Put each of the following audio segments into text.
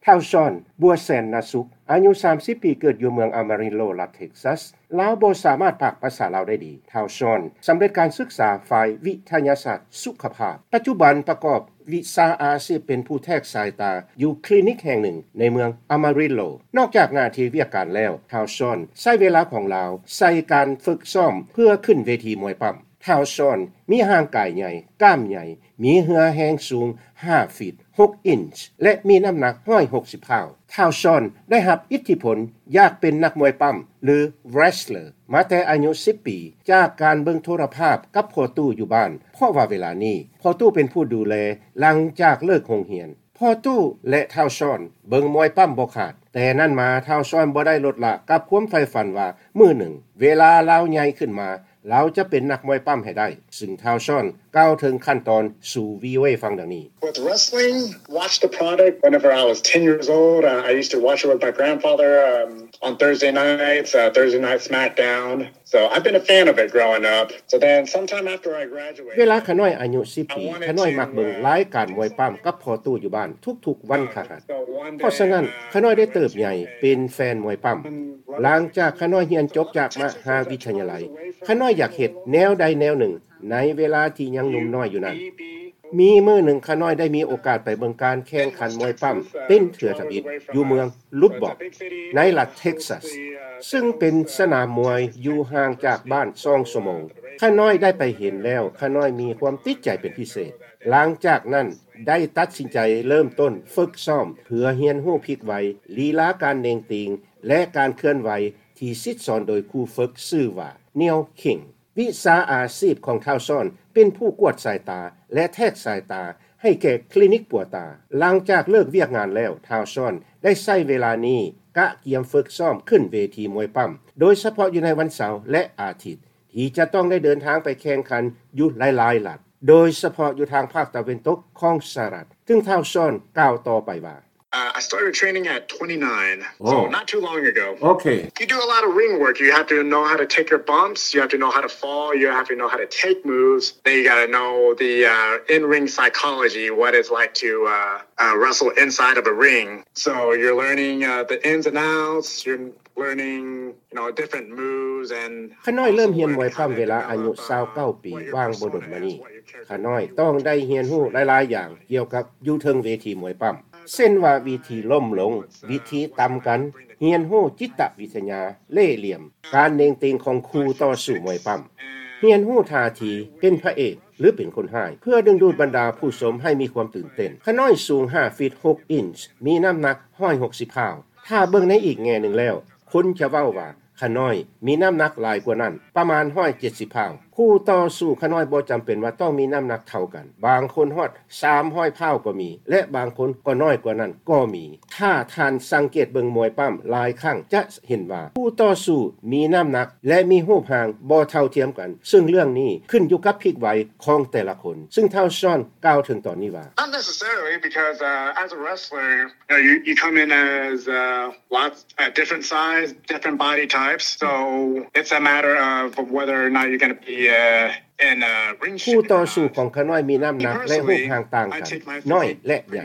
ທ້າວຊອນ ບົວແສນນາສຸກ ອາຍຸສາມສິບປີ ເກີດຢູ່ເມືອງອາມາຣິນໂລ ລັດເທັກຊັສ. ລາວບໍ່ສາມາດປາກພາສາລາວໄດ້ດີ. ທ້າວຊອນ ສຳເລັດການສຶກສາຝ່າຍວິທະຍາສາດສຸຂະພາບ. ປັດຈຸບັນປະກອບວິຊາອາຊີບເປັນຜູ້ແທກສາຍຕາຢູ່ຄລີນິກແຫ່ງໜຶ່ງໃນເມືອງອາມາຣິນໂລ. ນອກຈາກໜ້າທີ່ວຽກການແລ້ວ, ທ້າວຊອນໃຊ້ເວລາຂອງລາວໃສ່ການຝຶກຊ້ອມເພື່ອຂຶ້ນເວທີມວຍປ້ຳ. ທ້າວຊອນມີຮ່າງກາຍໃຫຍ່, ກ້າມໃຫຍ່, ມີເຫື່ອແຮງສູງຫ້າຟີດຫົກອິນ ແລະ ມີນ້ຳໜັກຮ້ອຍຫົກສິບປາຍ. ທ້າວຊອນໄດ້ຮັບອິດທິພົນຢາກເປັນນັກມວຍປ້ຳ ຫຼື wrestler ມາແຕ່ອາຍຸສິບປີ ຈາກການເບິ່ງໂທລະພາບກັບພໍ່ຕູ້ຢູ່ບ້ານ, ເພາະວ່າເວລານີ້ພໍ່ຕູ້ເປັນຜູ້ດູແລຫຼັງຈາກເລີກໂຮງຮຽນ. ພໍ່ຕູ້ ແລະ ທ້າວຊອນເບິ່ງມວຍປ້ຳບໍ່ຂາດ. ແຕ່ນັ້ນມາ ທ້າວຊອນບໍ່ໄດ້ລົດລະກັບຄວາມໃຝ່ຝັນວ່າ ມື້ໜຶ່ງເວລາລາວໃຫຍ່ຂຶ້ນມາ ລາວຈະເປັນນັກມວຍປ້ຳໃຫ້ໄດ້, ຊຶ່ງທ້າວຊອນກ່າວເຖິງຂັ້ນຕອນສູ່ ວີໂອເອ ຟັງດັ່ງນີ້. With wrestling, watch the product. Whenever I was ten years old, uh, I used to watch it with my grandfather, um, on Thursday nights, uh, Thursday Night SmackDown. So I've been a fan of it growing up. So then sometime after I graduated, ເວລາຂະນ້ອຍອາຍຸສິບປີ, ຂະນ້ອຍມັກເບິ່ງລາຍການມວຍປ້ຳກັບພໍ່ຕູ້ຢູ່ບ້ານທຸກໆວັນພະຫັດ. ເພາະສະນັ້ນ, ຂະນ້ອຍໄດ້ເຕີບໃຫຍ່ເປັນແຟນມວຍປ້ຳ. ຫຼັງຈາກຂະນ້ອຍຮຽນຈົບຈາກມະຫາວິທະຍາໄລ, ຂະນ້ອຍຢາກເຮັດແນວໃດແນວໜຶ່ງໃນເວລາທີ່ຍັງໜຸ່ມນ້ອຍຢູ່ນັ້ນ. ມີມື້ໜຶ່ງ ຂະນ້ອຍໄດ້ມີໂອກາດໄປເບິ່ງການແຂ່ງຂັນມວຍປ້ຳເປັນເທື່ອທຳອິດຢູ່ເມືອງ Lubbock ໃນລັດເທັກຊັສ, ຊຶ່ງເປັນສະໜາມມວຍຢູ່ຫ່າງຈາກບ້ານສອງຊົ່ວໂມງ. ຂະນ້ອຍໄດ້ໄປເຫັນແລ້ວ, ຂະນ້ອຍມີຄວາມຕິດໃຈເປັນພິເສດ. ຫຼັງຈາກນັ້ນໄດ້ຕັດສິນໃຈເລີ່ມຕົ້ນຝຶກຊ້ອມເພື່ອຮຽນຮູ້ພລິກໄວ, ລີລາການເໜັງຕີງ ແລະ ການເຄື່ອນໄຫວທີ່ສິດສອນໂດຍຄູຝຶກຊື່ວ່າ Neil King. ວິຊາອາຊີບຂອງທ້າວຊອນເປັນຜູ້ກວດສາຍຕາ ແລະ ແທກສາຍຕາໃຫ້ແກ່ຄລີນິກປົວຕາ. ຫຼັງຈາກເລີກວຽກງານແລ້ວ, ທ້າວຊອນໄດ້ໃຊ້ເວລານີ້ກະກຽມຝຶກຊ້ອມຂຶ້ນເວທີມວຍປ້ຳ, ໂດຍສະເພາະຢູ່ໃນວັນເສົາ ແລະ ອາທິດ ທີ່ຈະຕ້ອງໄດ້ເດີນທາງໄປແຂ່ງຂັນຢູ່ຫຼາຍໆລັດ, ໂດຍສະເພາະຢູ່ທາງພາກຕາເວັນຕົກຂອງສະຫະລັດ, ຊຶ່ງທ້າວຊອນກ່າວຕໍ່ໄປວ່າ. Uh, I started training at twenty-nine, so not too long ago. Okay. You do a lot of ring work. You have to know how to take your bumps. You have to know how to fall. You have to know how to take moves. Then you gotta know the, uh, in-ring psychology, what it's like to, uh, uh, wrestle inside of a ring. So you're learning, uh, the ins and outs. You're learning, you know, different moves and ຂ້ານ້ອຍເລີ່ມຮຽນມວຍປ້ຳເວລາອາຍຸຊາວເກົ້າປີ ຫວ່າງບໍ່ດົນມານີ້. ຂ້ານ້ອຍຕ້ອງໄດ້ຮຽນຮູ້ຫຼາຍໆຢ່າງກ່ຽວກັບຢູ່ເທິງເວທີມວຍປ້ຳ, ເຊັ່ນວ່າວິທີລົ້ມລົງ, ວິທີຕຳກັນ, ຮຽນຮູ້ຈິດຕະວິທະຍາ, ເລ່ຫຼ່ຽມ, ການເໜັງຕີງຂອງຄູ່ຕໍ່ສູ້ມວຍປ້ຳ, ຮຽນຮູ້ທ່າທີເປັນພະເອກ ຫຼື ເປັນຄົນຮ້າຍ ເພື່ອດຶງດູດບັນດາຜູ້ຊົມໃຫ້ມີຄວາມຕື່ນເຕັ້ນ. ຂ້ານ້ອຍສູງຫ້າຟີດຫົກອິນ, ມີນ້ຳໜັກຮ້ອຍຫົກສິບປາຍ. ຖ້າເບິ່ງໃນອີກແງ່ໜຶ່ງແລ້ວ, ຄົນຈະເວົ້າວ່າຂ້ານ້ອຍມີນ້ຳໜັກຫຼາຍກວ່ານັ້ນ, ປະມານຮ້ອຍເຈັດສິບປາຍ. ຄູ່ຕໍ່ສູ້ຂ້ານ້ອຍບໍ່ຈຳເປັນວ່າຕ້ອງມີນ້ຳໜັກເທົ່າກັນ, ບາງຄົນຮອດສາມຮ້ອຍປາຍກໍມີ ແລະ ບາງຄົນກໍນ້ອຍກວ່ານັ້ນກໍມີ. ຖ້າທ່ານສັງເກດເບິ່ງມວຍປ້ຳຫຼາຍຄັ້ງ ຈະເຫັນວ່າຄູ່ຕໍ່ສູ້ມີນ້ຳໜັກ ແລະ ມີຮູບຮ່າງບໍ່ເທົ່າທຽມກັນ, ເຊິ່ງເລື່ອງນີ້ຂຶ້ນຢູ່ກັບພລິກໄວຂອງແຕ່ລະຄົນ, ເຊິ່ງທ້າວຊອນກ່າວເຖິງຕອນນີ້ວ່າ. Not necessarily, because, uh, as a wrestler, you know, you, you come in as, uh, lots, uh, different size, different body types. So it's a matter of whether or not you're gonna be, uh, in a ring. ຄູ່ຕໍ່ສູ້ຂອງຂ້ານ້ອຍມີນ້ຳໜັກ ແລະ ຮູບຮ່າງຕ່າງກັນ, ນ້ອຍ ແລະ ໃຫຍ່.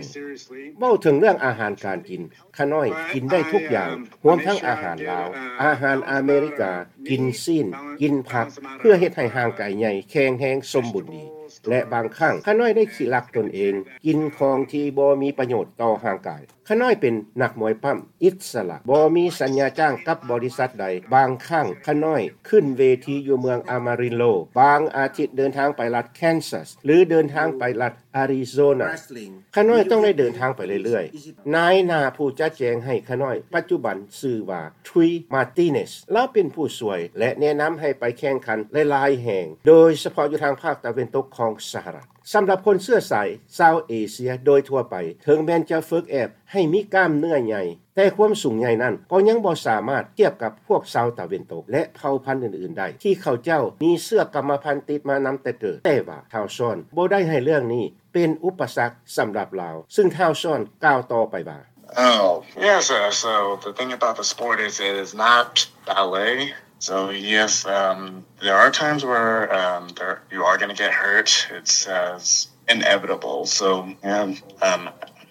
ເວົ້າເຖິງເລື່ອງອາຫານການກິນ, ຂ້ານ້ອຍກິນໄດ້ທຸກຢ່າງ, ຮວມທັງອາຫານລາວ, ອາຫານອາເມລິກາ, ກິນຊີ້ນ, ກິນຜັກ, ເພື່ອເຮັດໃຫ້ຮ່າງກາຍໃຫຍ່, ແຂງແຮງ, ສົມບູນດີ. ແລະ ບາງຄັ້ງ ຂ້ານ້ອຍໄດ້ຂີ້ລັກຕົນເອງ, ກິນຂອງທີ່ບໍ່ມີປະໂຫຍດຕໍ່ຮ່າງກາຍ. ຂ້ານ້ອຍເປັນນັກມວຍປ້ຳອິດສະຫຼະ, ບໍ່ມີສັນຍາຈ້າງກັບບໍລິສັດໃດ. ບາງຄັ້ງຂ້ານ້ອຍຂຶ້ນເວທີຢູ່ເມືອງອາມາຣິນໂລ, ບາງອາທິດເດີນທາງໄປລັດແຄນຊັສ ຫຼື ເດີນທາງໄປລັດອາຣິໂຊນາ. ຂ້ານ້ອຍຕ້ອງໄດ້ເດີນທາງໄປເລື້ອຍໆ. ນາຍໜ້າຜູ້ຈັດແຈງໃຫ້ຂ້ານ້ອຍປັດຈຸບັນຊື່ວ່າ Tui Martinez. ລາວເປັນຜູ້ຊ່ວຍ ແລະ ແນະນຳໃຫ້ໄປແຂ່ງຂັນຫຼາຍໆແຫ່ງ, ໂດຍສະເພາະຢູ່ທາງພາກຕາເວັນຕົກຂອງສະຫະລັດ. ສຳລັບຄົນເຊື້ອສາຍຊາວເອເຊຍໂດຍທົ່ວໄປ, ເຖິງແມ່ນຈະຝຶກແອບໃຫ້ມີກ້າມເນື້ອໃຫຍ່, ແຕ່ຄວາມສູງໃຫຍ່ນັ້ນກໍຍັງບໍ່ສາມາດທຽບກັບພວກຊາວຕາເວັນຕົກ ແລະ ເຜົ່າພັນອື່ນໆໄດ້ ທີ່ເຂົາເຈົ້າມີເຊື້ອກຳມະພັນຕິດມານຳແຕ່ເກີດ. ແຕ່ວ່າທ້າວຊອນບໍ່ໄດ້ໃຫ້ເລື່ອງນີ້ເປັນອຸປະສັກສຳລັບລາວ, ຊຶ່ງທ້າວຊອນກ່າວຕໍ່ໄປວ່າ. Oh, yeah, so, so the thing about the sport is it is not ballet. So, yes, um, there are times where, um, there, you are gonna get hurt. It's, uh, it's inevitable. So, yeah, um,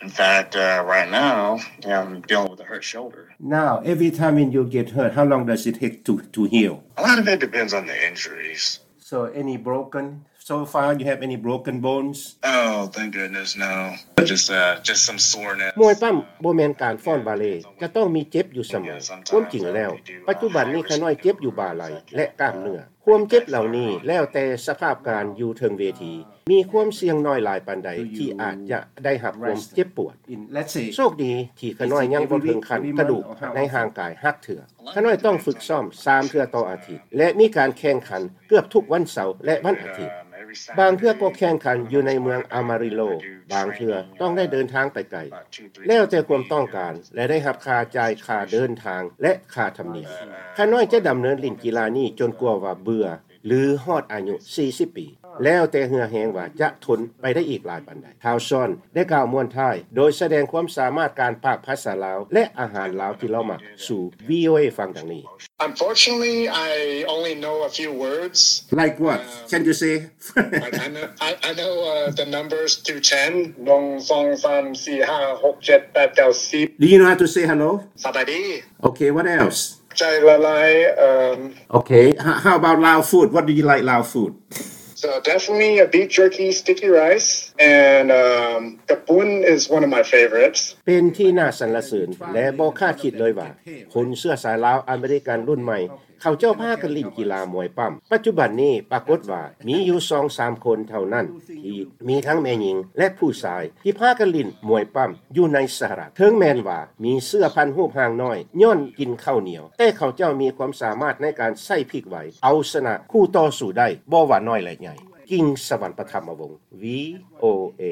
In fact, uh, right now, I'm dealing with a hurt shoulder. Now, every time when you get hurt, how long does it take to, to heal? A lot of it depends on the injuries. So, any broken? So far, you have any broken bones? Oh, thank goodness, no. Just, uh, just some soreness. ມວຍປ້ຳບໍ່ແມ່ນການຟ້ອນບາເລ, ຈະຕ້ອງມີເຈັບຢູ່ສະເໝີ. ຄວາມຈິງແລ້ວ, ປັດຈຸບັນນີ້ຂ້ານ້ອຍເຈັບຢູ່ບ່າໄຫຼ່ ແລະ ກ້າມເນື້ອ. ຄວາມເຈັບເຫຼົ່ານີ້ແລ້ວແຕ່ສະພາບການຢູ່ເທິງເວທີ. ມີຄວາມສ່ຽງໜ້ອຍຫຼາຍປານໃດທີ່ອາດຈະໄດ້ຮັບຄວາມເຈັບປວດ. ໂຊກດີທີ່ຂ້ານ້ອຍຍັງບໍ່ເຖິງຂັ້ນກະດູກໃນຮ່າງກາຍຫັກເທື່ອ. ຂ້ານ້ອຍຕ້ອງຝຶກຊ້ອມສາມເທື່ອຕໍ່ອາທິດ ແລະ ມີການແຂ່ງຂັນເກືອບທຸກວັນເສົາ ແລະ ວັນອາທິດ. ບາງເທື່ອກໍແຂ່ງຂັນຢູ່ໃນເມືອງອາມາຣິໂລ, ບາງເທື່ອຕ້ອງໄດ້ເດີນທາງໄປໄກ. ແລ້ວແຕ່ຄວາມຕ້ອງການ ແລະ ໄດ້ຮັບຄ່າຈ່າຍຄ່າເດີນທາງ ແລະ ຄ່າທຳນຽມ. ຂ້ານ້ອຍຈະດຳເນີນຫຼິ້ນກິລານີ້ຈົນກວ່າວ່າເບື່ອ ຫຼື ຮອດອາຍຸສີ່ສິບປີ, ແລ້ວແຕ່ເຫື່ອແຮງວ່າຈະທົນໄປໄດ້ອີກຫຼາຍປານໃດ. ທ່ານຊອນໄດ້ກ່າວມ້ວນທ້າຍໂດຍສະແດງຄວາມສາມາດການປາກພາສາລາວ ແລະ ອາຫານລາວທີ່ລາວມັກສູ່ ວີໂອເອ ຟັງດັ່ງນີ້. Unfortunately, I only know a few words. Like what? Um, can you say? Like, I know, I, I know, uh, the numbers to ten. ໜຶ່ງ ສອງ ສາມ ສີ່ ຫ້າ ຫົກ ເຈັດ ແປດ ເກົ້າ ສິບ. Do you know how to say hello? ສະບາຍດີ. Okay, what else? ໃຈລະລາຍ. Um, okay, how, how about Lao food? What do you like Lao food? So definitely a beef jerky, sticky rice, and, um, ກະປຸ້ນ is one of my favorites. ເປັນທີ່ໜ້າສັນລະເສີນ ແລະ ບໍ່ຄາດຄິດເລີຍວ່າ ຄົນເຊື້ອສາຍລາວອາເມລິກັນລຸ້ນໃໝ່ ເຂົາເຈົ້າພາກັນຫຼິ້ນກິລາມວຍປ້ຳ. ປັດຈຸບັນນີ້ປາກົດວ່າມີຢູ່ສອງສາມຄົນເທົ່ານັ້ນ ທີ່ມີທັງແມ່ຍິງ ແລະ ຜູ້ຊາຍ ທີ່ພາກັນຫຼິ້ນມວຍປ້ຳຢູ່ໃນສະຫະລັດ. ເຖິງແມ່ນວ່າມີເຊື້ອພັນຮູບຮ່າງນ້ອຍຍ້ອນກິນເຂົ້າໜຽວ, ແຕ່ເຂົາເຈົ້າມີຄວາມສາມາດໃນການໃຊ້ພິກໄຫວ ເອົາຊະນະຄູ່ຕໍ່ສູ້ໄດ້ ບໍ່ວ່ານ້ອຍ ແລະ ໃຫຍ່. ກິງ ສະຫວັນປະທຳມະວົງ ວີໂອເອ.